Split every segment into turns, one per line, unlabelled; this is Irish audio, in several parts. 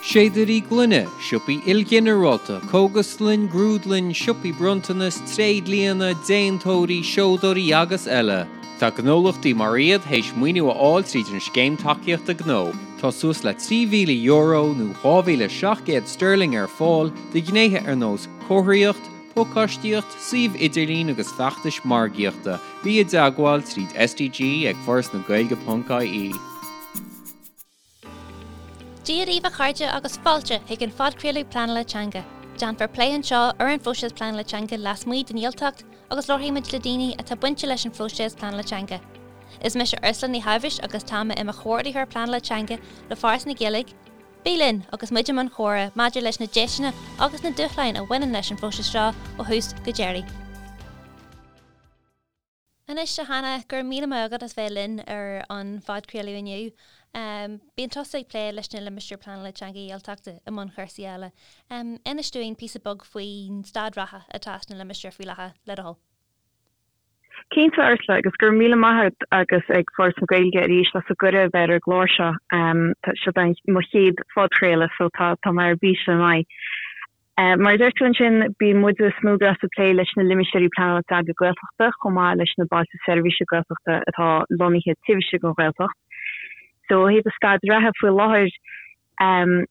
Séadairí gloine, siopaí ilghinearálta, cógaslann, grúdlann, siopaí bronntanas, tréidlianna, déantóirí, seodóirí agus eile. Tá gnólachtaí mar iad théis maoiniú a fháil tríd an Scéim Tacaíochta Gnó. Tá suas le €3,000 nó 2,700 sterling ar fáil do ghnéithe ar nós comharthaíocht, pacáistíocht, suíomh idirlín agus feachtais margaíochta. Bí i dteagmháil tríd SDG ag forasnagaeilge.ie.
Dia daoibh a chairde agus fáilte chuig an phodchraoladh Pleanála Teanga. Déanfar plé anseo ar an phróiseas pleanála teanga lasmuigh den Ghaeltacht agus labharfaidh muid le daoine atá bainte leis an phróiseas pleanála teanga. Is mise Ursula Ní Sháibhis agus tá mé i mo chomhordaitheoir pleanála teanga le Foras na Gaeilge. Bí linn agus muid i mbun comhrá maidir leis na deiseanna agus na dúshláin a bhaineann leis an phróiseas seo ó thús go deireadh. Anois, a Hannah, go raibh míle maith agat as bheith linn ar an phodchraoladh inniu. Bíonn tusa ag plé leis na Limistéir Pleanála Teanga Ghaeltachta i mbun chúrsaí eile. Inis dúinn píosa beag faoin staid reatha atá sna limistéir faoi láthair, le do thoil.
Cinnte, Ursula, agus go raibh míle maith agat agus ag Foras na Gaeilge arís as an gcuireadh a bheith ar an gclár seo. Seo mo chéad phodchraoladh so tá mé ar bís le maith. Mar a deir tú ansin, bíonn muide i Snowgrass ag plé leis na Limistéirí Pleanála Teanga Gaeltachta chomh maith leis na Bailte Seirbhíse Gaeltachta atá lonnaithe taobh istigh den Ghaeltacht. So ó thaobh an staid reatha faoi láthair,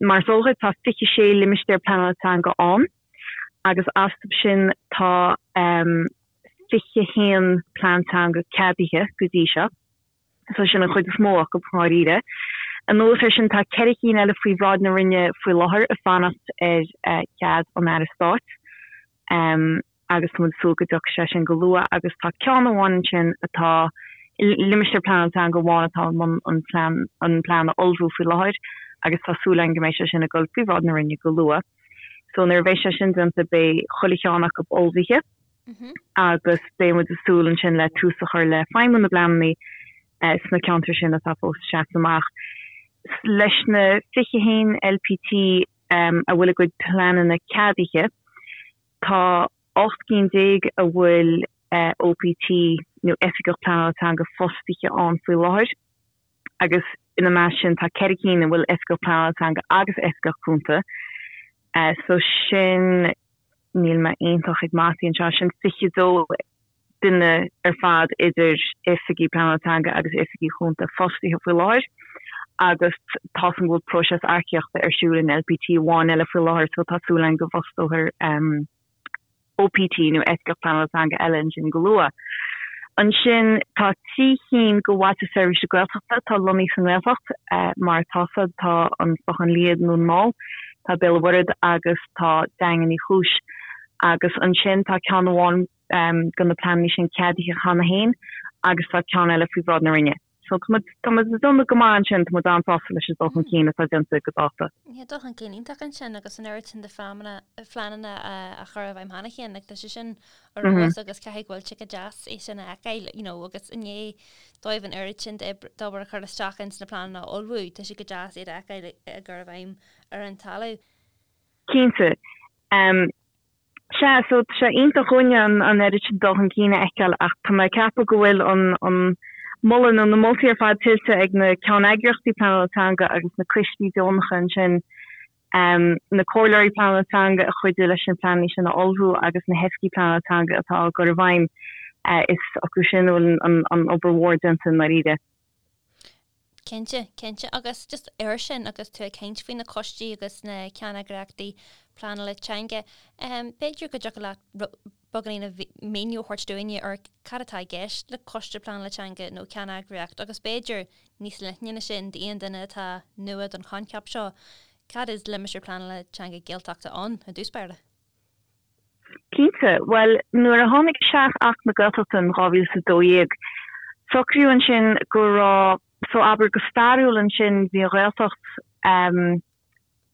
mar is eol dhuit, tá 26 Limistéar Pleanála Teanga ann agus astu sin tá 21 Plean Teanga ceadaithe go dtí seo. So sin an chuid is mó acu, ndáiríre. Anuas air sin, tá 4 cinn eile faoi bhráid na Roinne faoi láthair ag fanacht ar chead an Aire Stáit agus tá muid ag súil go dtiocfaidh sé sin go luath agus tá ceann amháin ansin atá, limistéar pleanála teanga amháin atá i mbun an plean, an plean a ullmhú faoi láthair agus tá súil againn go mbeidh sé sin ag dul faoi bhráid na Roinne go luath. So nuair a bheidh sé sin déanta beidh chuile cheann acu ullmhaithe. agus beidh muid ag súil ansin le tús a chur le feidhmiú na bpleananna sna ceantair sin atá fós ag seasamh amach. Leis na 21 LPT a bhfuil a gcuid pleananna ceadaithe, tá 18 cinn a bhfuil OPT nó Oifigeach Pleanála Teanga fostaithe ann faoi láthair agus ina measc sin tá 4 cinn a bhfuil Oifigeach Pleanála Teanga agus Oifigeach Cúnta. So sin. níl mé iontach ag mataí anseo, sin 22 duine ar fad idir oifigigh pleanála teanga agus oifigigh chúnta fostaithe faoi láthair agus tá 's agam go bhfuil próiseas earcaíochta ar siúl in LPT amháin eile faoi láthair so tá súil againn go bhfostófar OPT nó Oifigeach Pleanála Teanga eile ansin go luath. Ansin tá 3 chinn de Bhailte Seirbhíse Gaeltachta atá lonnaithe sa nGaeltacht, mar atá 's agat, tá an Clochán Liath i nDún na nGall, tá Béal an Mhuirthead agus tá Daingean Uí Chúis. Agus ansin tá ceann amháin de na pleananna sin ceadaithe cheana féin agus tá ceann eile faoi bhráid na Roinne. So tá muid, tá muid ag déanamh go maith ansin, tá muid an-sásta leis an dul chun cinn atá déanta go dáta.
Yeah, dul chun cinn iontach ansin agus an oiread sin de phleananna, phleananna á chur i bhfeidhm cheana féin, like tá sé sin ar fheabhas agus caithfidh go bhfuil sé go deas é sin a fheiceáil, you know, agus i ndiaidh dóibh an oiread sin d'obair a chur isteach ins na pleananna a ullmhú, tá sé go deas iad a fheiceáil á gcur i bhfeidhm ar an talamh.
Cinnte. Sea, so tá sé iontach dhúinne an oiread sin dul chun cinn a fheiceáil ach tá mé ag ceapadh go bhfuil an an moladh nó na moltaí ar fad tuillte ag na ceanneagraíochtaí pleanála teanga agus na coistí deonacha ansin, na comhairleoirí pleanála teanga a chuidigh leis na pleananna sin a ullmhú agus na hoifigigh pleanála teanga atá á gcur i bhfeidhm. Is acu sin a bhfuil an obair mhór déanta i ndáiríre.
Cinnte, cinnte. Agus just air sin, agus tú ag caint faoi na coistí agus na ceanneagraíochtaí pleanála teanga, b'fhéidir go dtiocfadh leat beagáinín de mhíniú a thabhairt dúinne ar cad atá i gceist le coiste pleanála teanga nó ceanneagraíocht agus b'fhéidir níos leithne ná sin d'aon duine atá nua don choincheap seo, cad is Limistéar Pleanála Teanga Gaeltachta ann i dtús báire?
Cinnte. Bhuel, nuair a tháinig isteach Acht na Gaeltachta in 2012, socraíodh ansin go raibh, so abair go stairiúil ansin bhí an Ghaeltacht,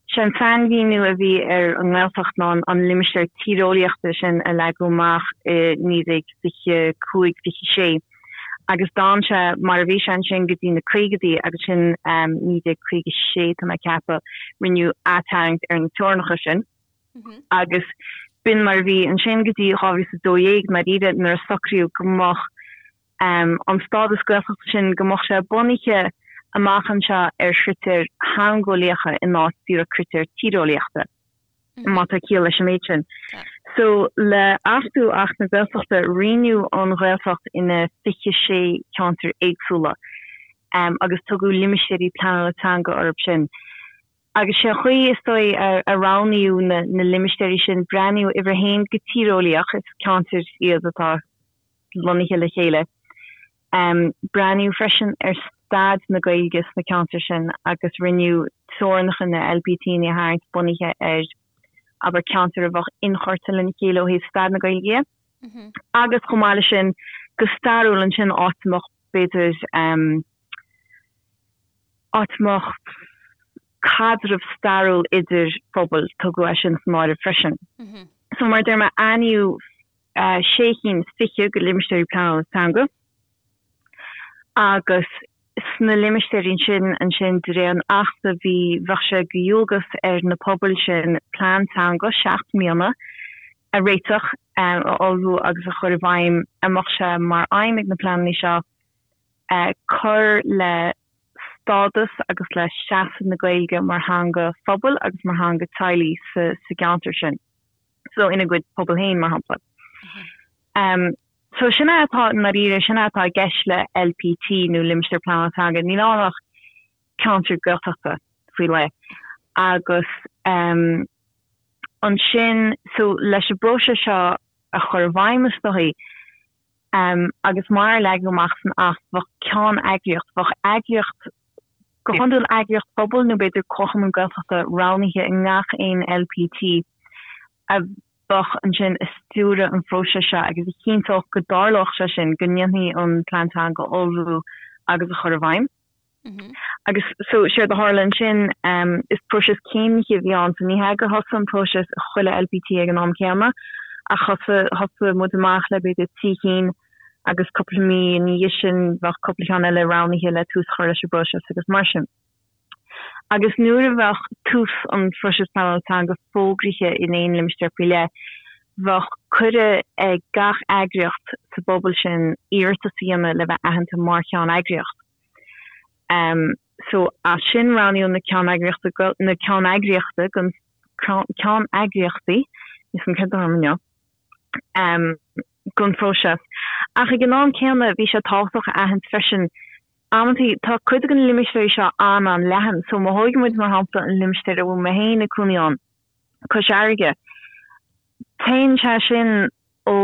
sé an sainmhíniú a bhí ar an nGaeltacht ná an limistéar tíreolaíochta sin a leagadh amach i 1925, 26 agus d'fhan sé mar a bhí sé ansin go dtí na caogaidí agus sin 1956 tá mé ag ceapadh, rinneadh atarraingt ar na teorainneacha sin. Agus b'in mar a bhí ansin go dtí 2012 ndáiríre nuair a socraíodh go mbeadh an stádas Gaeltachta sin, go mbeadh sé bunaithe. amach anseo ar chritéir theangeolaíocha in áit díreach critéir tíreolaíochta, má tá ciall leis an méid sin. So, le achtú Acht na Gaeltachta, roinneadh an Ghaeltacht ina 26 ceantar éagsúla agus tugadh limistéirí pleanála teanga orthu sin. Agus sé an chaoi, is dóigh, a roghnaíodh na limistéirí sin, breathnaíodh uimhir a haon go tíreolaíoch, is ceantair iad atá lonnaithe le chéile. Breathnaíodh freisin ar staid na Gaeilge sna ceantair sin agus rinneadh teorainneacha na LPTanna a tharraingt bunaithe ar, abair, ceantair a bheadh inchurtha lena chéile ó thaobh staid na Gaeilge dhe. Agus chomh maith leis sin, go stairiúil ansin, áit a mbeadh, b'fhéidir, áit a mbeadh caidreamh stairiúil idir phobail, tugadh é sin san áireamh freisin. So mar a deir mé, aithníodh sé chinn is fiche de limistéirí pleanála teanga agus sna limistéirí sin ansin de réir an Achta bhí, bheadh sé de dhualgas ar na pobail sin plean teanga 7 mbliana a réiteach, a ullmhú agus a chur i bhfeidhm a mbeadh sé mar aidhm ag na pleananna seo cur le stádas agus le seasamh na Gaeilge mar theanga phobail agus mar theanga teaghlaigh sa gceantar sin, so ina gcuid pobal féin, mar shampla. So sin é atá, i ndáiríre, sin é atá i gceist le LPT nó Limistéar Pleanála Teanga. Níl ann ach ceantar Gaeltachta faoi leith. Agus ansin, so leis an bpróiseas seo a chur i bhfeidhm, is dóigh, Agus mar a leagadh amach san Acht, bheadh ceann-eagraíocht, bheadh eagraíocht, go hiondúil eagraíocht phobail nó b'fhéidir comharchumann Gaeltachta roghnaithe i ngach aon LPT a bheadh ansin ag stiúradh an phróisis seo agus a chinnteodh go dtarlódh sé sin, go ndéanfaí an Plean Teanga a ullmhú agus a chur i bhfeidhm. Agus so, séard a tharla ansin, is próiseas céimnithe a bhí ann, so ní hea gur thosaigh an próiseas i chuile LPT ag an am céanna, ach thosaigh, thosaigh muid amach le b'fhéidir 3 chinn agus cúpla mí ina dhiaidh sin bheadh cúpla ceann eile roghnaithe le tús a chur leis an bpróiseas agus mar sin. Agus nuair a bheadh tús an phróisis pleanála teanga fógraithe in aon limistéar faoi leith, bheadh cuireadh ag gach eagraíocht sa bpobal sin iarratas a dhéanamh le bheith aitheanta mar cheann-eagraíocht. So as sin roghnaíodh na ceanneagraíochta, na ceanneagraíochta don, ceanneagraíochtaí, níl a fhios agam céard atá orm inniu, don phróiseas. Ach ag an am céanna bhí sé tábhachtach a aithint freisin amantaí tá cuid de na limistéirí seo an-an-leathan. So má thógann muid mar shampla an limistéar a bhfuil mé féin ag cónaí ann, Cois Fharraige, téann sé sin ó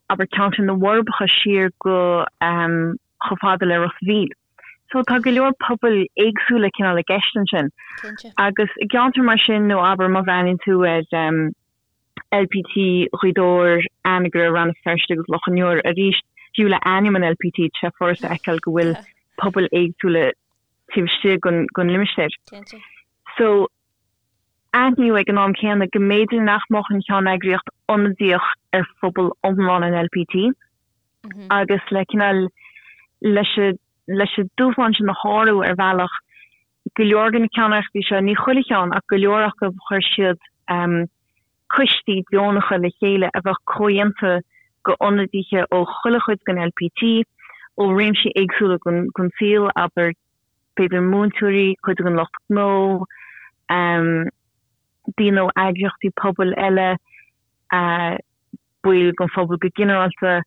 abair ceantar na bhForbacha siar go chomh fada le Ros a' Mhíl. So tá go leor pobail éagsúla cineál i gceist ansin.
Cinnte.
Agus i gceantar mar sin nó abair má bhreathnaíonn tú ar LPT Ghaoth Dobhair, Anagaire, Rann na Feirste agus Loch an Iúir arís, fiú le ainm an LPT tá sé furasta a fheiceáil go bhfuil pobail éagsúla taobh istigh den limistéar.
Cinnte.
So aithníodh ag an am céanna go mb'fhéidir nach mbeadh an cheanneagraíocht ionadaíoch ar phobal iomlán an LPT agus le cineál leis leis an dúshlán sin a shárú ar bhealach, go leor de na ceanneagraíochtaí seo, ní chuile cheann ach go leor acu, chuir siad coistí deonacha le chéile a bheadh comhdhéanta d'ionadaithe ó chuile chuid den LPT, ó réimsí éagsúla den saol, abair b'fhéidir múinteoirí, cuid den lucht gnó, daoine ó eagraíochtaí pobail eile, baill den phobal go ginearálta.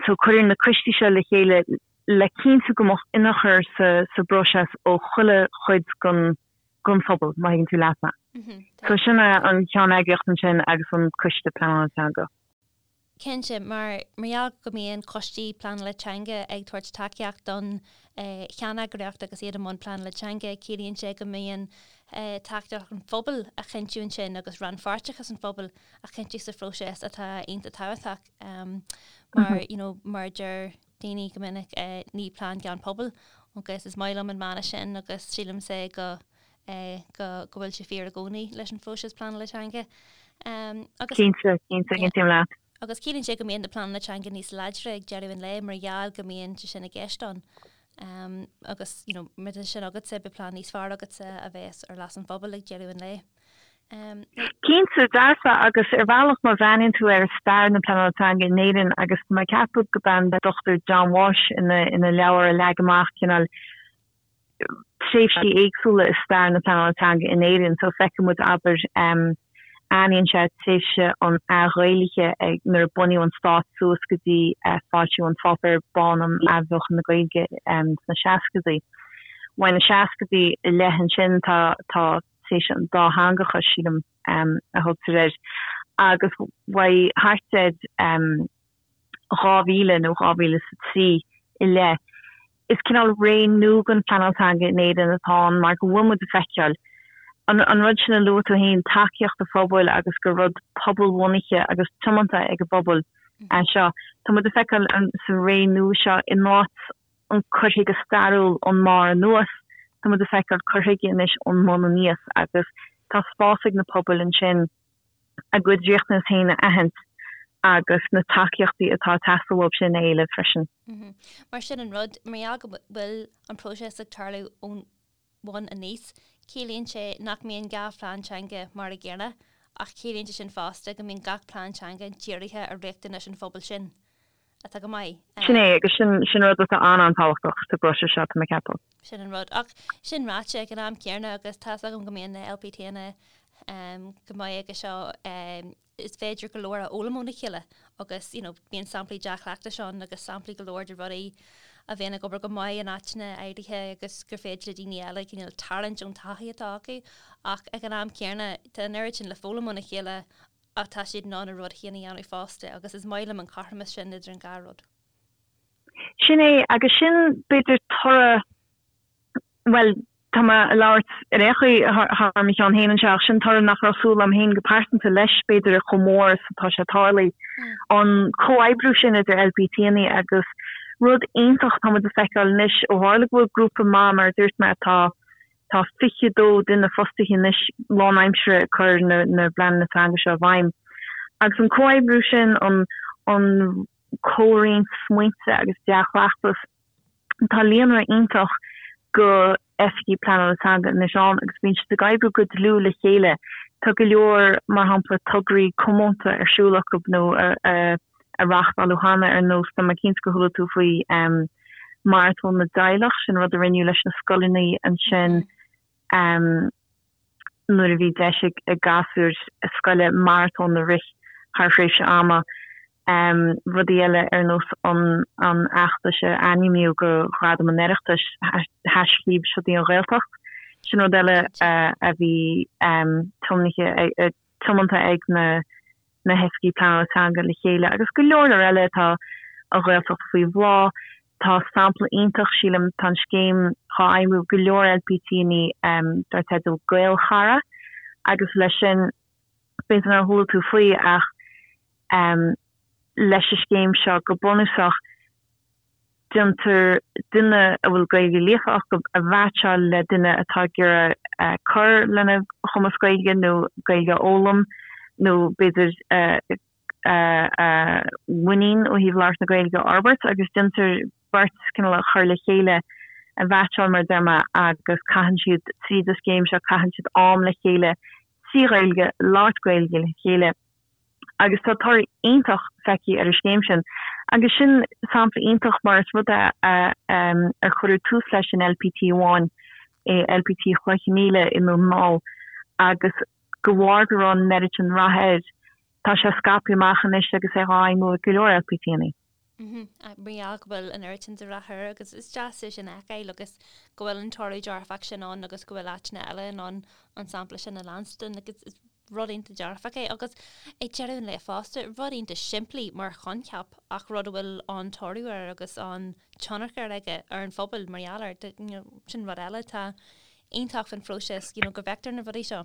So cuireadh na coistí seo le chéile le cinntiú go mbeadh ionchur sa bpróiseas ó chuile chuid den phobal, má thuigeann tú leat mé. So sin é an cheanneagraíocht ansin agus an coiste pleanála teanga.
Cinnte, mar mar gheall go mbíonn coistí pleanála teanga ag tabhairt tacaíocht don cheanneagraíocht agus iad i mbun pleanála teanga, ciallaíonn sé go mbíonn tacaíocht an phobail á chinntiú ansin agus rannpháirteachas an phobail á chinntiú sa phróiseas atá iontach tábhachtach mar you know mar a deir daoine go minic ní plean gan pobal agus is maith liom an mana sin agus sílimse go go go bhfuil sé fíor i gcónaí leis an phróiseas pleanála teanga.
Agus Cinnte, cinnte, aontaím leat.
Agus ciallaíonn sé go mbíonn na pleananna teanga níos láidre ag deireadh an lae mar gheall go mbíonn sé sin i gceist ann. Agus you know má tá sin agatsa, beidh plean níos fearr agatsa a bheas ar leas an phobail ag deireadh an lae.
Cinnte, dearfa, agus ar bhealach má bhreathnaíonn tú ar stair na pleanála teanga in Éirinn agus tá mé ag ceapadh gurb é an Dr John Walsh ina ina leabhar a leag amach cineál. tréimhsí éagsúla i stair na pleanála teanga in Éirinn. So feiceann muid, abair, aithníonn sé tréimhse an athghaelaithe ag nuair a bunaíodh an stát suas go dtí foilsiú an Pháipéir Bán um Athbheochan na Gaeilge sna seascaidí. Uaidh na seascaidí i leith ansin tá tá tréimhse an dátheangachais, sílim, a thugtar air, agus uaidh thart ar 2000 nó 2003 i leith, is cineál ré nua den phleanáil teanga in Éirinn atá ann mar go bhfuil muid ag feiceáil an an rud sin a luaigh tú féin, tacaíocht an phobail agus gur rud pobalbhunaithe agus tiomanta ag an bpobal é seo. Tá muid ag feiceáil sa ré nua seo in áit an cur chuige stairiúil ón mbarr anuas, tá muid ag feiceáil cur chuige anois ón mbun aníos agus tá spás ag na pobail ansin a gcuid riachtanas féin a aithint agus na tacaíochtaí atá ag teastáil uathu sin a éileamh freisin.
Mar sin an rud, mar gheall go bhfuil an próiseas ag tarlú ón bhun aníos, ciallaíonn sé nach mbíonn gach plean teanga mar a gcéanna ach ciallaíonn sé sin fosta go mbíonn gach plean teanga dírithe ar riachtanais an phobail sin. atá go maith.
Sin é, agus sin, sin rud atá an-an-tábhachtach sa bpróiseas seo, tá mé ag ceapadh.
Sin an rud. Ach sin ráite, ag an am céanna, agus tá's agam go mbíonn na LPTanna go maith aige seo, is féidir go leor a fhoghlaim óna chéile agus, you know, bíonn samplaí dea-chleachtais ann agus samplaí go leor de rudaí a bhíonn ag obair go maith in áiteanna áirithe agus gur féidir le daoine eile cineál tarraingt ón taithí atá acu. Ach ag an am céanna, tá an oiread sin le foghlaim óna chéile ach tá siad in ann a rud féin a dhéanamh fosta agus is maith liom an cothromas sin idir an dhá rud.
Sin é, agus sin b'fhéidir toradh, bhuel, tá mé ag labhairt ar aon chaoi thar mo cheann féin anseo, ach sin toradh nach raibh súil agam féin go pearsanta leis, b'fhéidir, chomh mór is atá sé tarlaithe. An comhoibriú sin idir LPTanna agus rud iontach atá muid ag feiceáil anois, ó tharla go bhfuil grúpa maith, mar a dúirt mé, atá Tá 22 duine fostaithe anois lánaimseartha ag cur na bpleananna teanga seo i bhfeidhm. Agus an comhoibriú sin, an an comhroinnt smaointe agus dea-chleachtas, tá líonra iontach de oifigigh pleanála teanga anois ann agus bíonn siad ag oibriú go dlúth le chéile. Tá go leor, mar shampla, tograí comónta ar siúl acu nó a a reáchtáladh cheana, ar nós, tá mé cinnte gur chuala tú faoi Maratón na dTeaghlach, sin rud a rinneadh leis na scoileanna ansin nuair a bhí deis ag gasúir scoile maratón a rith thar thréimhse ama. Rudaí eile ar nós an fheachtais a ainmníodh go Ghradam an Oireachtais, haischlib Seo í an Ghaeltacht, sin rud eile a bhí tiomnaithe tiomanta ag na na hoifigigh pleanála teanga le chéile agus go leor leor eile. Tá an Ghaeltacht faoi bhláth. Tá sampla iontach, sílim, tá an scéim dhá fheidhmiú ag go leor LPTanna dar teideal Gaelchara agus leis sin, b'fhéidir nár chuala tú faoi ach leis an scéim seo go bunúsach, déantar duine a bhfuil Gaeilge líofa acu a mheaitseáil le duine atá ag iarraidh cur lena chumas Gaeilge nó Gaeilge a fhoghlaim nó b'fhéidir a mhuinín ó thaobh labhairt na Gaeilge a fhorbairt agus déantar beirt cineál a chur le chéile, a mheaitseáil mar a deir mé agus caitheann siad tríd an scéim seo, caitheann siad am le chéile trí Ghaeilge, labhairt Gaeilge le chéile. agus tá toradh iontach feicthe ar an scéim sin. Agus sin sampla iontach mar is rud é ar cuireadh tús leis in LPT amháin, i LPT Chloich Cheann Fhaola i nDún na nGall, agus de bharr go raibh an oiread sin rath air, tá sé scaipthe amach anois agus é á fheidhmiú ag go leor LPTanna.
Mar gheall go bhfuil an oiread sin de rath air agus is deas é sin a fheiceáil agus go bhfuil an toradh dearfach sin ann agus go bhfuil áiteanna eile in ann an sampla sin a leanstan agus is rud iontach dearfach é agus ag deireadh an lae fosta, rud iontach simplí mar choincheap ach rud a bhfuil an-toradh air agus an-tionchar aige ar an phobal mar gheall air, you know, sin rud eile atá iontach faoin phróiseas, you know, go bhfeictear na rudaí seo.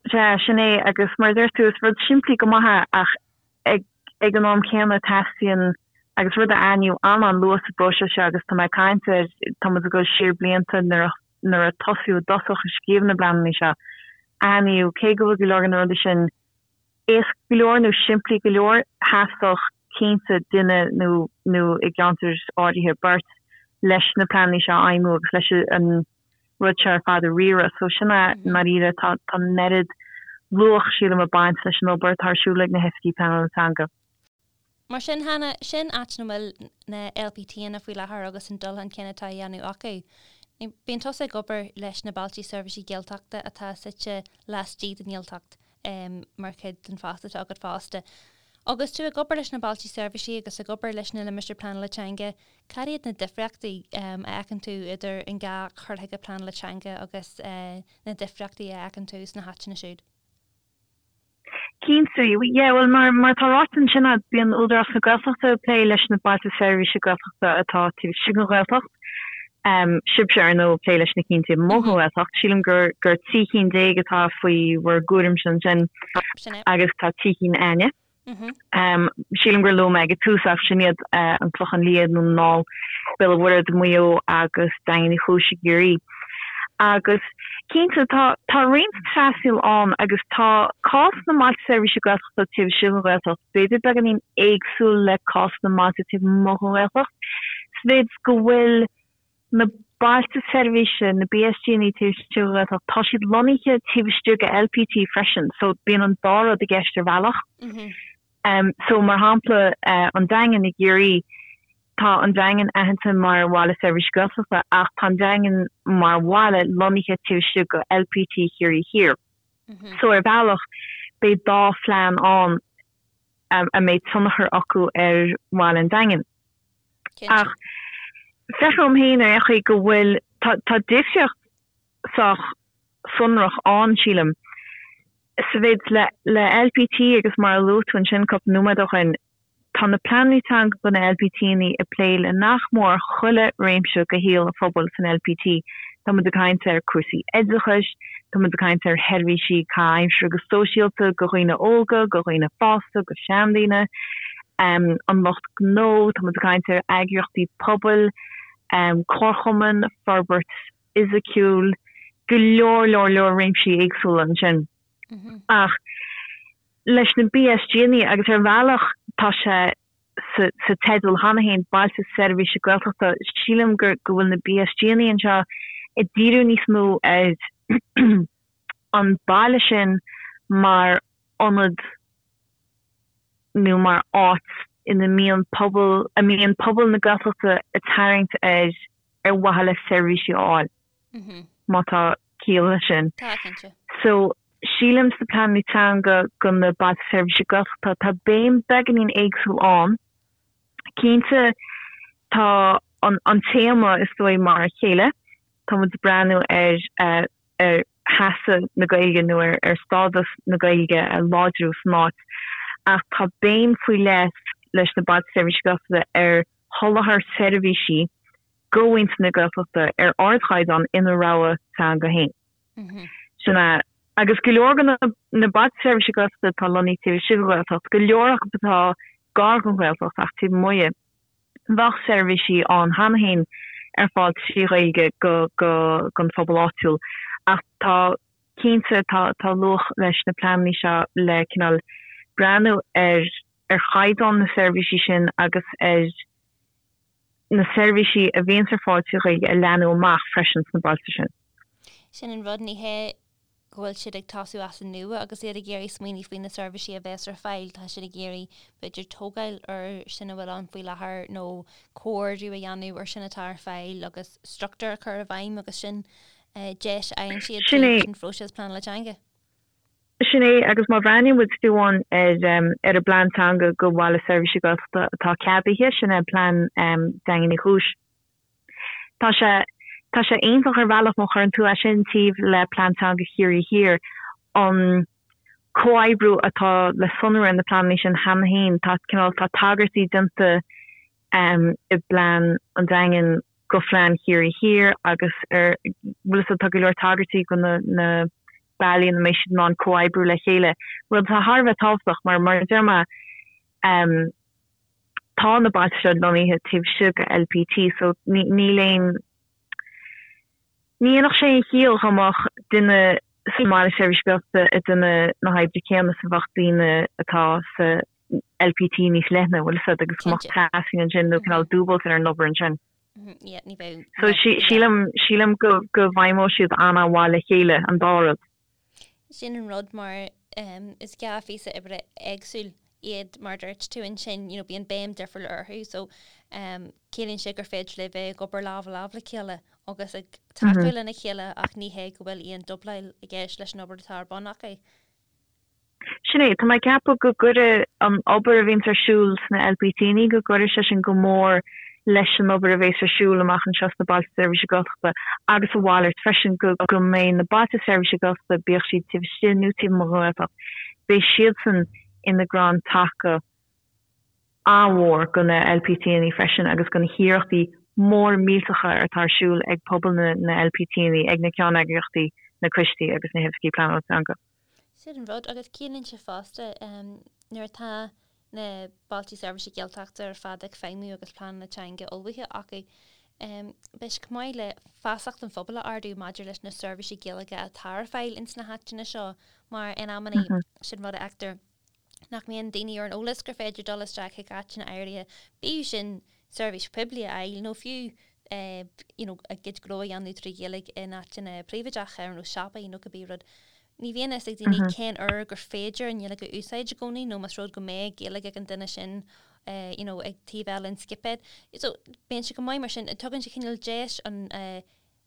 Sea, sin é agus mar a deir tú is rud simplí go maith é ach ag Ag an am céanna, teastaíonn, agus rud a aithníodh an-an-luath sa bpróiseas seo agus tá mé ag caint ar, tá muid ag dul siar blianta nuair a nuair a tosaíodh i dtosach ag scríobh na bpleananna seo, aithníodh, cé go bhfuil go leor de na rudaí sin éasca go leor nó simplí go leor, theastódh cinnte duine nó nó i gceantair áirithe beirt leis na pleananna seo a fheidhmiú agus leis an rud seo ar fad a riaradh. So sin é i ndáiríre, tá tá an oiread luach, sílim, ag baint leis an obair atá ar siúl ag na hoifigigh pleanála teanga.
Mar sin, Hannah, sin áit ina bhfuil na LPTanna faoi láthair agus an dul chun cinn atá á dhéanamh acu. Bíonn tusa ag obair leis na Bailte Seirbhísí Gaeltachta atá suite laistigh den nGaeltacht mar chuid den phost atá agat fosta. Agus tú ag obair leis na Bailte Seirbhísí agus ag obair leis na Limistéir Pleanála Teanga, cad iad na difríochtaí a fheiceann tú idir an dá chur chuige pleanála teanga agus na difríochtaí a fheiceann tú sna háiteanna siúd?
Cinnte, yeah, bhuel mar mar atá ráite ansin a'd, bíonn Údarás na Gaeltachta ag plé leis na Bailte Seirbhíse Gaeltachta atá taobh istigh den Ghaeltacht. Sibhse ar ndóigh ag plé leis na cinn taobh amuigh den Ghaeltacht. Sílim gur gur 13 cinn atá faoi bhur gcúraimse ansin agus tá 3 cinn a'inne. Sílim gur luaigh mé ag an tús ach sin iad an Clochán Liath i nDún na nGall, Béal an Mhuirthead i Maigh Eo agus Daingean Uí Chúis i gCiarraí. Agus cinnte tá tá roinnt trasnaíl ann agus tá cás na mbailte seirbhíse Gaeltachta taobh istigh den Ghaeltacht b'fhéidir beagáinín éagsúil le cás na mbailte taobh amuigh den Ghaeltacht sa mhéid go bhfuil Na bailte seirbhíse, na BSGanna taobh istigh den Ghaeltacht, tá siad lonnaithe taobh istigh de LPT freisin, so bíonn an dá rud i gceist ar bhealach. So mar shampla, an Daingean i gCiarraí, tá an Daingean aitheanta mar bhaile seirbhíse Gaeltachta ach tá an Daingean mar bhaile lonnaithe taobh istigh de LPT Chiarraí Thiar. So ar bhealach, beidh dá phlean ann a mbeidh tionchar acu ar bhaile an Daingin. Ach feictear dom féin ar aon chaoi go bhfuil, tá, tá difríocht sách sonrach ann, sílim, sa mhéid le, le LPT agus mar a luaigh tú ansin cúpla nóiméad ó shin, tá na pleananna teanga do na LPTanna ag plé le nach mór chuile réimse de shaol an phobail san LPT. Tá muid ag caint ar cúrsaí oideachais, tá muid ag caint ar sheirbhísí caitheamh aimsire agus sóisialta do dhaoine óga, do dhaoine fásta, do sheandaoine, an lucht gnó, tá muid ag caint ar eagraíochtaí pobail, comharchumainn, forbairt fhisiciúil, go leor leor leor réimsí éagsúla ansin. Ach leis na BSGanna agus ar bhealach tá sé sa teideal cheana féin, Bailte Seirbhíse Gaeltachta, sílim go bhfuil na BSGanna anseo ag díriú níos mó ar an baile sin mar ionad nó mar áit ina mbíonn pobal, a mbíonn pobal na Gaeltachta ag tarraingt air ar mhaithe le seirbhísí a fháil. Má tá ciall leis sin.
Tá, cinnte.
So, sílim sna pleananna teanga do na Bailte Seirbhíse Gaeltachta, tá béim beagáinín éagsúil ann. Cinnte, tá an téama, is dóigh, mar a chéile. Tá muid ag breathnú ar ar sheasamh na Gaeilge nó ar stádas na Gaeilge a láidriú san áit, ach tá béim faoi leith leis na Bailte Seirbhíse Gaeltachta ar sholáthar seirbhísí do mhuintir na Gaeltachta ar ardchaighdeán ina rogha teanga féin. Sin é. Agus go leor de na Bailte Seirbhíse Gaeltachta atá lonnaithe taobh istigh den Ghaeltacht, go leor acu atá gar don Ghaeltacht ach taobh amuigh di, bheadh seirbhísí ann cheana féin ar fáil trí Ghaeilge don phobal áitiúil. Ach tá, cinnte, tá tá luach leis na pleananna seo le cineál breathnú ar ar chaighdeán na seirbhísí sin agus ar na seirbhísí a bhíonns ar fáil trí Ghaeilge a leathnú amach freisin sna bailte sin.
Sin an rud, ní hé go bhfuil siad ag tosú as an nua agus iad ag iarraidh smaoineamh faoi na seirbhísí a bheas ar fáil, tá siad ag iarraidh b'fhéidir tógáil ar sin a bhfuil ann faoi láthair nó comhordú a dhéanamh ar sin atá ar fáil agus struchtúr a chur i bhfeidhm agus sin deis a fhaigheann siad tríd an phróiseas pleanála teanga.
Sin é, agus má bhreathnaíonn muid fiú amháin ar ar an bplean teanga do Bhaile Seirbhíse Gaeltachta atá ceadaithe, sin é plean Daingean Uí Chúis, tá sé tá sé iontach ar bhealach má chuireann tú é sin taobh le plean teanga Chiarraí Thiar, an comhoibriú atá le sonrú ar na pleananna sin cheana féin, tá cineál tá tagairtí déanta i bplean an Daingin go phlean Chiarraí Thiar agus ar bhfuil fhios agat tá go leor tagairtí go na na bealaí ina mbeidh siad in ann comhoibriú le chéile, rud atá thar a bheith tábhachtach mar, mar a deir mé, tá na bailte seo lonnaithe taobh istigh de LPT so níl aon, ní dhéanfadh sé aon chiall dá mbeadh duine sa mBaile Seirbhíse Gaeltachta ag déanamh na hoibre céanna is a bheadh daoine atá sa LPT níos leithne, bhfuil fhios agat, agus go mbeadh trasnaí ansin nó cineál dúbailt ar an obair ansin. So sílim, sílim go, go bhfeidhmeoidh siad an-mhaith le chéile, an dá rud.
Sin an rud mar is dhá phíosa oibre éagsúil iad mar a dúirt tú ansin, you know, bíonn béim difriúil orthu so ciallaíonn sé gur féidir libh bheith ag obair lámh i lámh le chéile. agus ag tacú lena chéile ach ní hé go bhfuil aon dúbláil i gceist leis an obair atá ar bun acu.
Sin é, tá mé ag ceapadh go gcuirfidh an obair a bhíonns ar siúl sna LPTanna, go gcuirfidh sé sin go mór leis an obair a bhéas ar siúl amach anseo sna Bailte Seirbhíse Gaeltachta agus a mhalairt freisin, go go mbeidh na Bailte Seirbhíse Gaeltachta, bíodh siad taobh istigh nó taobh amuigh den Ghaeltacht, beidh siadsan ina gcrann taca an-mhór do na LPTanna freisin agus do na hiarrachtaí móra millteacha atá ar siúl ag pobal na LPTanna, ag na ceanneagraíochtaí, na coistí agus na hoifigí pleanála teanga.
Sin an rud, agus ciallaíonn sé fosta, nuair atá na Bailte Seirbhíse Gaeltachta ar fad ag feidhmiú agus pleananna teanga ullmhaithe acu, beidh sé chomh maith le feasacht an phobail a ardú maidir leis na seirbhísí Gaeilge atá ar fáil ins na háiteanna seo, mar in amannaí, sin rud a fheictear, nach mbíonn daoine ar an eolas gur féidir dul isteach chuig áiteanna áirithe, bíodh sin seirbhís poiblí a fháil nó fiú you know a gcuid gnó a dhéanamh trí Ghaeilge in áiteanna príobháideacha ar nós siopaí nó cibé rud. Ní bhíonn a fhios ag daoine cén uair gur féidir an Ghaeilge a úsáid i gcónaí nó más rud go mbeidh Gaeilge ag an duine sin you know ag taobh eile an scipéid. So bíonn sé go maith mar sin, tugann sé cineál deis an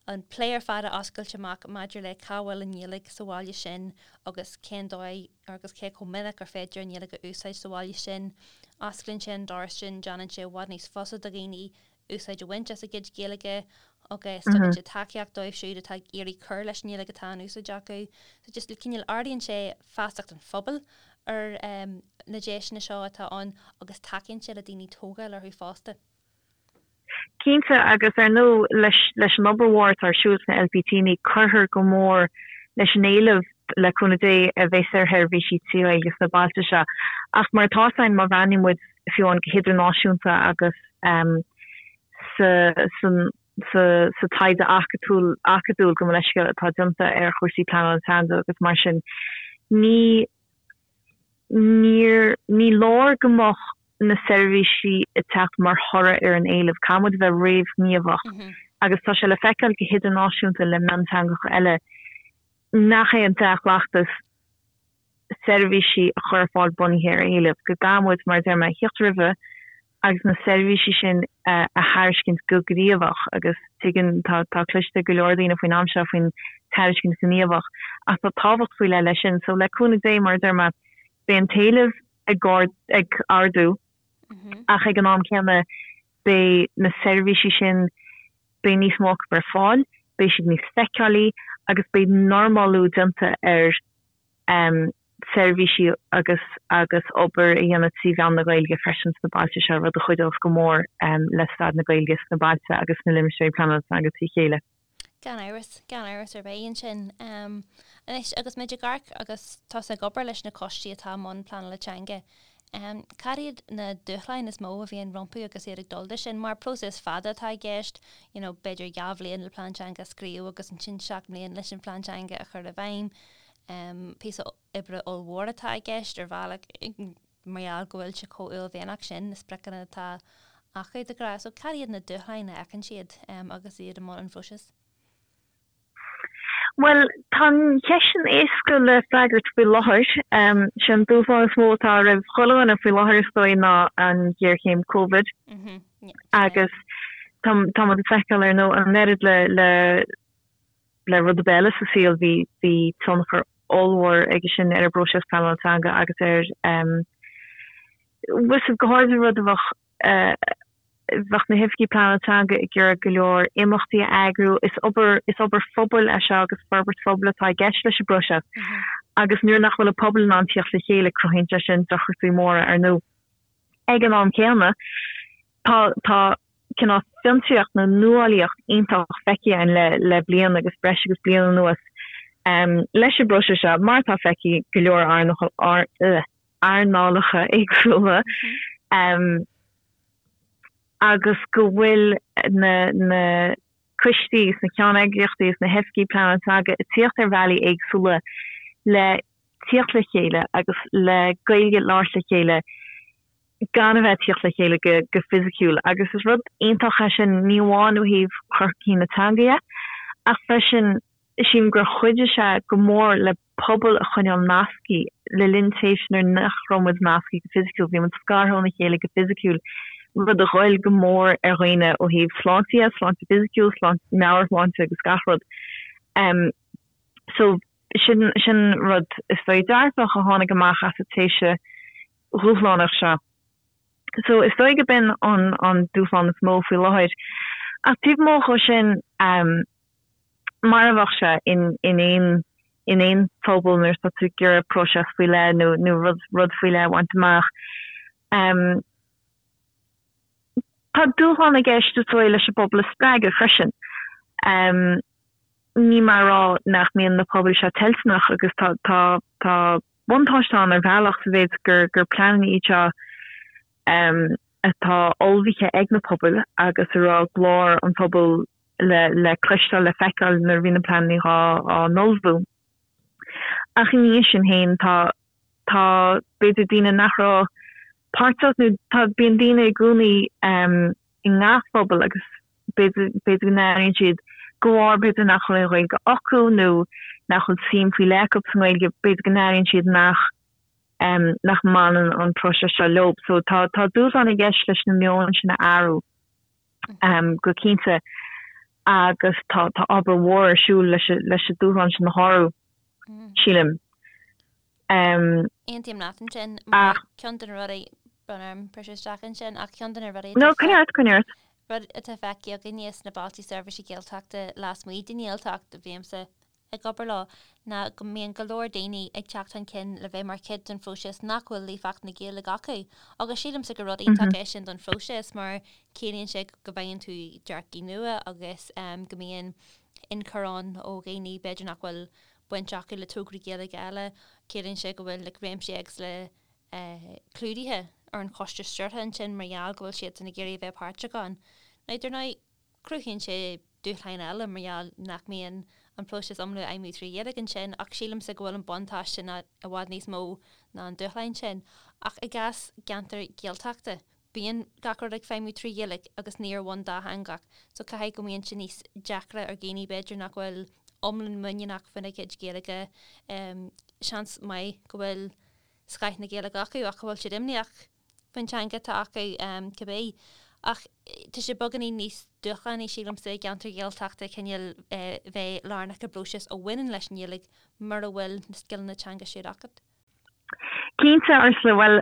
an plé ar fad a oscailt amach maidir le cá bhfuil an Ghaeilge sa bhaile sin agus cén dóigh agus cé chomh minic gur féidir an Ghaeilge a úsáid sa bhaile sin. Osclaíonn sé an doras sin, déanann sé i bhfad níos fusa do dhaoine úsáid a bhaint as a gcuid Gaeilge agus tugann sé tacaíocht dóibh siúd atá ag iarraidh cur leis an nGaeilge atá in úsáid acu. So just cineál ardaíonn sé feasacht an phobail ar na deiseanna seo atá ann agus tacaíonn sé le daoine tógáil orthu fosta.
Cinnte, agus ar ndóigh leis an obair mhór atá ar siúl sna LPTanna, cuirfear go mór leis an éileamh, le cúnamh Dé, a bheas ar sheirbhísí trí Ghaeilge sna bailte seo. Ach mar atá fhios againn, má bhreathnaíonn muid fiú amháin go hidirnáisiúnta agus sa taighde acadúil, gabh mo leithscéal, atá déanta ar chúrsaí pleanála teanga agus mar sin, ní Níor, ní leor go mbeadh na seirbhísí ag teacht mar thoradh ar an éileamh, caithfidh muid a bheith réamhghníomhach agus tá sé le feiceáil go hidirnáisiúnta le mionteangacha eile nach é an dea-chleachtas seirbhísí a chur ar fáil bunaithe ar éileamh, go gcaithfidh muid, mar a deir mé, theacht roimhe agus na seirbhísí sin a thairiscint go gníomhach agus tuigeann, tá, tá cloiste ag go leor daoine faoin am seo faoin tairiscint ghníomhach ach tá tábhacht faoi leith leis sin. So le cúnamh Dé, mar a deir mé, beidh an t-éileamh ag ag ardú ach ag an am céanna beidh na seirbhísí sin, beidh níos mó acu ar fáil, beidh siad níos feiceálaí agus beidh normalú déanta ar seirbhísí agus agus obair a dhéanamh trí mheán na Gaeilge freisin sna bailte seo, rud a chuideos go mór le staid na Gaeilge sna bailte agus sna limistéirí pleanála teanga trí chéile.
Gan amhras, gan amhras ar bith ansin. Anois, agus muid ag amharc agus tusa ag obair leis na coistí atá i mbun pleanála teanga, cad iad na dúshláin is mó a bhíonn rompu agus iad ag dul de sin? Mar próiseas fada atá i gceist, you know, b'fhéidir dhá bhliain le plean teanga a scríobh agus ansin seacht mbliana leis an phlean teanga a chur i bhfeidhm. Píosa oibre ollmhór atá i gceist ar bhealach mar gheall go bhfuil sé chomh uaillmhianach sin, na spriocanna atá acu de ghnáth. So cad iad na dúshláin a fheiceann siad agus iad i mbun an phróisis?
Bhuel, tá an cheist sin éasca le freagairt faoi láthair. Sé an dúshlán is mó atá roimh chuile dhuine faoi láthair is dóigh ná an ghéarchéim Covid. Agus tá muid ag feiceáil ar ndóigh an oiread le le le rud ar bith eile sa saol, bhí bhí tionchar ollmhór aige sin ar an bpróiseas pleanála teanga agus ar bhfuil fhios agat, go háirithe rud a bheadh bheadh na hoifigigh pleanála teanga ag iarraidh go leor imeachtaí a eagrú. Is obair is obair phobail é seo agus forbairt phobail atá i gceist leis an bpróiseas agus nuair nach bhfuil an pobal in ann tíocht le chéile cruthaíonn sé sin deacrachtaí móra ar ndóigh. Ag an am céanna tá tá cineál fiontraíocht nó nuálaíocht iontach feicthe againn le le bliain agus breis agus bliain anuas leis an bpróiseas seo, mar atá feicthe i go leor earnálacha éagsúla, agus go bhfuil na na coistí is na ceanneagraíochtaí is na hoifigigh pleanála teanga ag tíocht ar bhealaí éagsúla le tíocht le chéile agus le Gaeilge a labhairt le chéile gan a bheith ag tíocht le chéile go fisiciúil agus is rud iontach é sin, ní amháin ó thaobh chur chun cinn na teanga dhe ach freisin sílim gur chuidigh sé go mór le pobal a choinneáil nasctha le linn tréimhse nuair nach raibh muid nasctha go fisiciúil, bhí muid scartha óna chéile go fisiciúil. rud a ghoill go mór ar dhaoine ó thaobh sláinte dhe, sláinte fisiciúil, sláinte, meabhairshláinte agus gach rud. So sin, sin rud is dóigh dearfach a tháinig amach as an tréimhse dhúshlánach seo. So is dóigh go b'in an, an dúshlán is mó faoi láthair. Ach taobh amuigh dhó sin, mar a bheadh sé in, in aon, in aon phobal nuair atá tú ag iarraidh próiseas faoi leith nó, nó rud, rud faoi leith a bhaint amach. Tá dúshlán i gceist is dóigh leis an bpobal a spreagadh freisin. Níl mé a rá nach mbíonn na pobail seo toilteanach agus tá, tá, tá buntáiste ann ar bhealach sa mhéid gur, gur pleananna iad seo atá ullmhaithe ag na pobail agus a raibh glór an phobail le, le cloisteáil, le feiceáil nuair a bhí na pleananna á, á n-ullmhú. Ach ina dhiaidh sin féin tá, tá b'fhéidir daoine nach raibh páirteach nó tá, bíonn daoine i gcónaí i ngach phobal agus b'fhéidir, b'fhéidir go n-airíonn siad de bharr b'fhéidir nach bhfuil aon Ghaeilge acu nó nach bhfuil suim faoi leith acu sa nGaeilge, b'fhéidir go n-airíonn siad nach, nach mbaineann an próiseas seo leo. So tá, tá dúshlán i gceist leis na meoin sin a athrú go cinnte agus tá, tá obair mhór ar siúl leis, leis an dúshlán sin a shárú, sílim.
Aontaím leat ansin, mar ceann de na rudaí, brón orm briseadh isteach ansin, ach ceann de na rudaí
No, coinnigh ort, coinnigh ort.
rud atá feicthe againne sna Bailte Seirbhíse Gaeltachta lasmuigh den nGaeltacht, a bhímse ag obair leo, ná go mbíonn go leor daoine ag teacht chun cinn le bheith mar chuid den phróiseas nach bhfuil líofacht na Gaeilge acu. Agus sílimse gur rud iontach é sin don phróiseas mar ciallaíonn sé go bhfaigheann tú dearcaí nua agus go mbíonn ionchur ann ó dhaoine b'fhéidir nach bhfuil baint acu le tograí Gaeilge eile, ciallaíonn sé go bhfuil like réimsí éagsúla clúdaithe ar an choiste stiúrtha ansin mar gheall go bhfuil siadsan ag iarraidh a bheith páirteach ann. Now dar ndóigh, cruthaíonn sé dúshláin eile mar gheall nach mbíonn an próiseas iomlán ag feidhmiú trí Ghaeilge ansin ach sílimse go bhfuil an buntáiste i bhfad níos mó ná an dúshláin sin. Ach i gcás ceantar Gaeltachta, bíonn gach rud ag feidhmiú trí Ghaeilge agus ní ar bhonn dátheangach so caithfidh go mbíonn sé níos deacra ar dhaoine b'fhéidir nach bhfuil iomlán muiníneach faoina gcuid Gaeilge, seans maith go bhfuil scoth na Gaeilge acu ach go bhfuil siad imníoch faoin teanga atá acu cibé. Ach tá sé beagáinín níos dúshlánaí sílimse i gceantar Ghaeltachta cineál bheith lárnach i bpróiseas a bhaineann leis an nGaeilge mura bhfuil na scileanna teanga siúd agat.
Cinnte, Ursula, bhuel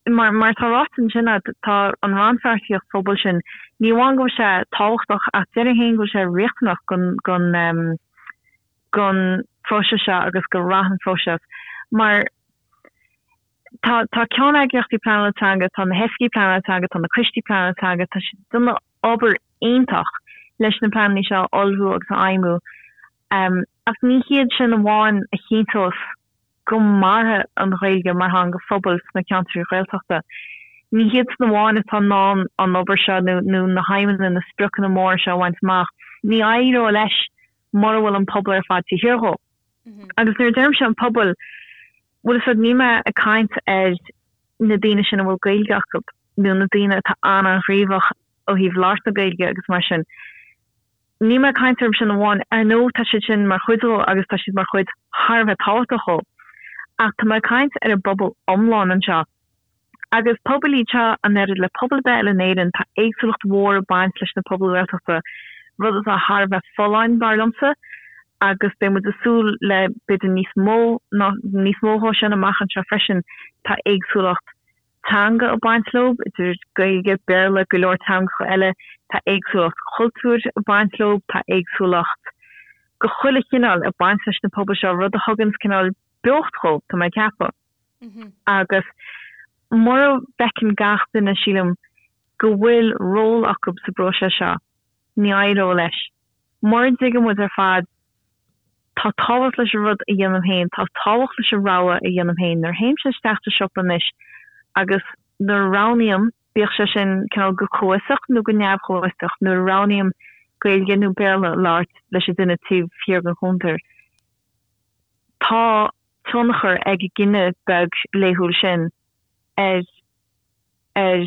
Mar mar atá ráite ansin agat, tá an rannpháirtíocht phobail sin, ní amháin go bhfuil sé tábhachtach ach déarfainn féin go bhfuil sé riachtanach don don don phróiseas seo agus do rath an phróiseas. Mar tá tá ceanneagraíochtaí pleanála teanga, tá na hoifigigh pleanála teanga, tá na coistí pleanála teanga, tá siad ag déanamh obair iontach leis na pleananna seo a ullmhú agus a fheidhmiú. Ach ní hiad sin amháin a chinnteos go mairfidh an Ghaeilge mar theanga phobail sna ceantraí Ghaeltachta. Ní hiadsan amháin atá in ann an obair seo nó na haidhmeanna, na spriocanna móra seo a bhaint amach. Ní éireoidh leis mura bhfuil an pobal ar fad taobh thiar dhó. Agus nuair a deirimse an pobal, bhfuil fhios agat, níl mé ag caint ar na daoine sin a bhfuil Gaeilge acu nó na daoine atá an-an-ghníomhach ó thaobh labhairt na Gaeilge agus mar sin. Níl mé ag caint orthu sin amháin, ar ndóigh tá siad sin mar chuid dhó agus tá siad mar chuid thar a bheith tábhachtach dhó, ach tá mé ag caint ar an bpobal iomlán anseo. Agus pobail iad seo, an oiread le pobal ar bith eile in Éirinn, tá éagsúlacht mhór ag baint leis na pobail Ghaeltachta, rud atá thar a bheith folláin, dar liomsa, agus beidh muid ag súil le b'fhéidir níos mó ná níos mó dhó sin amach anseo freisin, tá éagsúlacht teanga ag baint leo, idir Gaeilge, Béarla, go leor teangacha eile, tá éagsúlacht chultúir ag baint leo, tá éagsúlacht de chuile chineál ag baint leis na pobail seo, rud a thuganns cineál beocht dhóibh, tá mé ag ceapadh. Agus mura bhfeiceann gach duine, sílim, go bhfuil ról acu sa bpróiseas seo, ní éireoidh leis. Mura dtuigeann muid ar fad Tá tábhacht leis an rud a dhéanaim féin, tá tábhacht leis an rogha a dhéanaim féin. Nuair a théimse isteach sa siopa anois agus nuair a roghnaím, bíodh sé sin cineál go comhfhiosach nó go neamh-chomhfhiosach, nuair a roghnaím Gaeilge nó Béarla a labhairt leis an duine taobh thiar den chuntar, tá tionchar ag an gcinneadh beag laethúil sin ar ar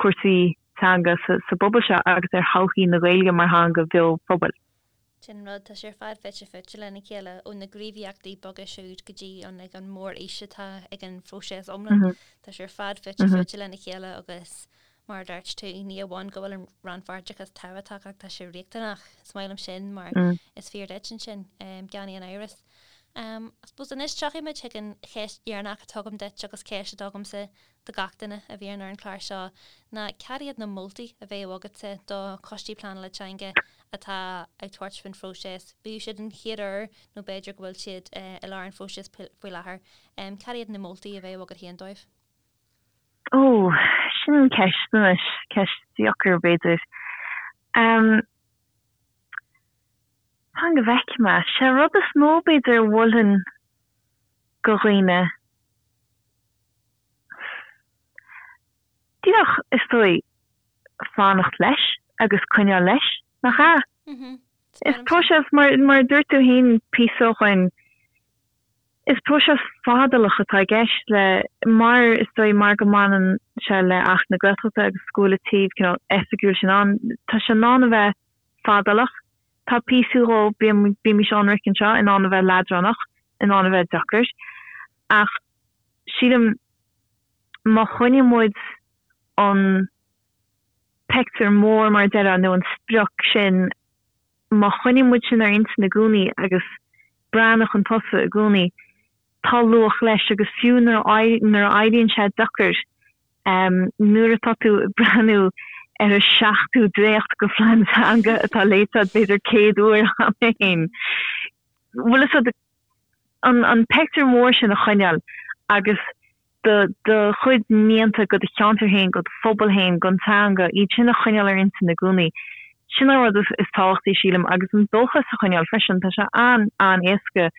chúrsaí teanga sa bpobal seo agus ar thodhchaí na Gaeilge mar theanga bheo phobail.
Sin an rud, tá sé ar fad fite fuaite lena chéile, ó na gníomhaíochtaí beaga siúd go dtí an like an mórfhís atá ag an phróiseas iomlán. Tá sé ar fad fite fuaite lena chéile agus. Mar a dúirt tú, ní amháin go bhfuil an rannpháirteachas tábhachtach ach tá sé riachtanach. Is maith liom sin mar is fíor duit ansin, gan aon amhras. I suppose anois tiocfaidh muid chuig an cheist dheireanach atá agam duit agus ceist atá agamsa do gach duine a bhíonn ar an chlár seo ná cad iad na moltaí a bheadh agatsa do choistí pleanála teanga atá ag tabhairt faoin phróiseas, bíodh siad an chéad uair nó b'fhéidir go bhfuil siad i lár an phróisis faoi láthair. Cad iad na moltaí a bheadh agat féin dóibh?
Ó, sin ceist anois, ceist deacair b'fhéidir. Fan go bhfeicfidh mé. Sé an rud is mó b'fhéidir a mholfainn go dhaoine, díreach is dóigh fanacht leis agus coinneáil leis, nach ea? Is próiseas, mar a dúirt tú féin píosa ó shoin, is próiseas fadálach atá i gceist le, mar is dóigh mar go mbaineann sé le Acht na Gaeltachta agus go bhfuil an taobh cineál oifigiúil sin ann, tá sé in ann a bheith fadálach. Tá píosa dhó, bímís ionraic anseo, in ann a bheith leadránach, in ann a bheith deacair. Ach sílim má choinníonn muid an pictiúr mór, mar a déarfá, nó an sprioc sin, má choinníonn muid sin ar intinn i gcónaí agus breathnú chun tosaigh i gcónaí, tá luach leis agus fiú nuair a éiríonn sé deacair, Nuair atá tú ag breathnú ar an seachtú dréacht de phlean teanga atá léite agat b'fhéidir 100 uair cheana féin, bhfuil fhios agat, an pictiúr mór sin a choinneáil agus do do chuid mianta go do cheantar féin, go do phobal féin, don teanga, iad sin a choinneáil ar intinn i gcónaí. Sin an rud is tábhachtaí, sílim, agus an dóchas a choinneáil freisin. Tá sé an-an-éasca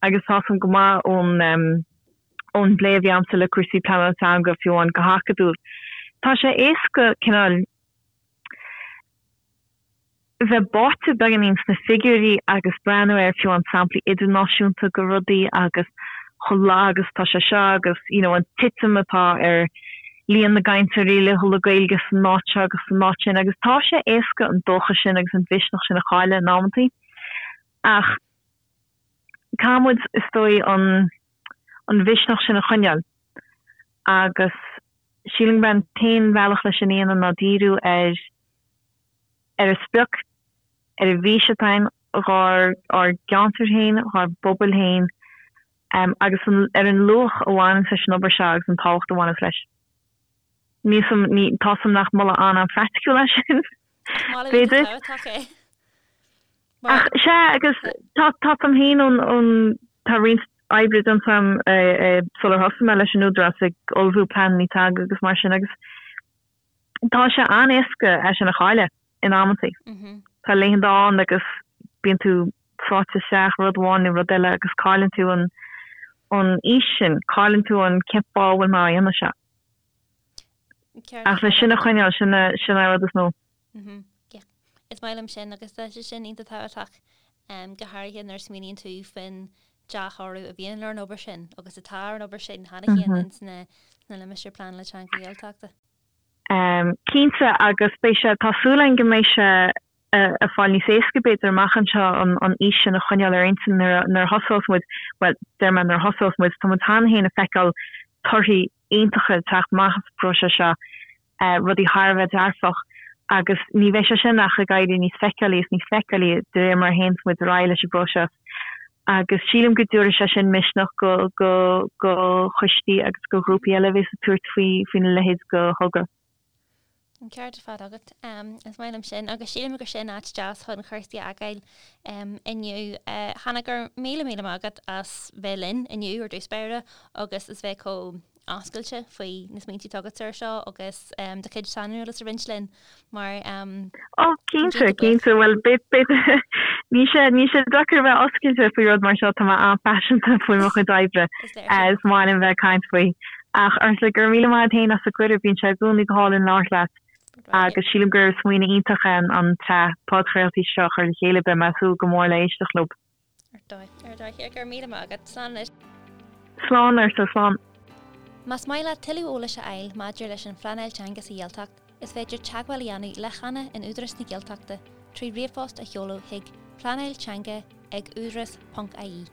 agus tá 'fhios a'm go maith ón. ón bplé a bhí a'msa le cúrsaí pleanála teanga, fiú amháin go hacadúil. Tá sé éasca cineál bheith báite beagáinín sna figiúirí agus breathnú ar fiú amháin samplaí idirnáisiúnta go rudaí agus chomh lag agus atá sé seo agus you know an titim atá ar líon na gcainteoirí laethúla Gaeilge san áit seo agus san áit sin agus tá sé éasca an dóchas sin agus an mhisneach sin a chailleadh in amantaí ach Caithfidh muid, is dóigh, an an mhisneach sin a choinneáil agus sílim gurb é an t-aon bhealach leis sin a dhéanamh ná díriú ar ar an sprioc, ar an bhfís atá againn dhár ár gceantar féin, dhár bpobail féin agus an ar an luach a bhaineanns leis an obair seo agus an tábhacht a bhaineanns leis. Níl 'fhios a'm, ní, tá 'fhios a'm nach moladh an-an-phraiticiúil é sin,
Moladh
b'fhéidir.
iontach tábhachtach é.
Ach sea, agus tá 'fhios a'm féin ón, ón, tá roinnt oibre déanta a'm sular thosaigh mé leis an Údarás ag ullmhú pleananna teanga agus mar sin agus tá sé an-éasca é sin a chailleadh in amantaí. Tá laethanta ann agus bíonn tú sáite isteach i rud amháin nó rud eile agus cailleann tú an, an fhís sin, cailleann tú an cén fáth a bhfuil mé á dhéanamh seo. Ach le sin a choinneáil, sin an rud is mó.
Yeah. Is maith liom sin agus tá sé sin iontach tábhachtach, go háirithe nuair a smaoiníonn tú faoin dea-thoradh a bhíonn ar an obair sin agus atá ar an obair sin cheana féin ins na limistéir pleanála teanga Ghaeltachta.
Cinnte, agus beidh sé, tá súil againn go mbeidh sé ag fáil níos éasca b'fhéidir amach anseo an fhís sin a choinneáil ar intinn nuair a thosós muid, bhuel, deir mé nuair a thosós muid, tá muid cheana féin ag feiceáil torthaí iontacha ag teacht amach as an bpróiseas seo. rudaí thar a bheith dearfach agus ní bheidh sé sin ach ag éirí níos feiceálaí is níos feiceálaí de réir mar a théanns muid ar aghaidh leis an bpróiseas agus sílim go dtabharfaidh sé sin misneach go go go choistí agus go ghrúpaí eile a bhéas ag tabhairt faoi faoina leithéid de thogra.
An ceart ar fad agat. Is maith liom sin agus sílim gur sin áit deas chun cúrsaí a fhágáil inniu. Hannah, go raibh míle míle maith agat as bheith linn inniu ar dtús báire agus as bheith chomh oscailte faoi na smaointe atá agat ar seo agus do chuid saineolais a roinnt linn mar
Ó, cinnte, cinnte, bhuel, b'fhéidir, níl sé, níl sé deacair a bheith oscailte faoi rud mar seo, tá mé an-phaiseanta faoi mo chuid oibre, is maith liom bheith ag caint faoi. Ach Ursula, go raibh míle maith agat féin as an gcuireadh, bíonn sé i gcónaí go hálainn labhairt leat agus sílim gur smaoineamh iontach é an tsraith podchraoltaí seo a chur le chéile, beidh mé ag súil go mór le éisteacht leo.
Ar dóigh, ar dóigh. Go raibh míle maith agat. Slán anois.
Slán, Ursula, slán.
Más maith leat tuilleadh eolais a fháil maidir leis an phleanáil teanga sa Ghaeltacht, is féidir teagmháil a dhéanamh le Hannah in Údarás na Gaeltachta trí ríomhphost a sheoladh chuig pleanáilteanga ag údarás ponc ie.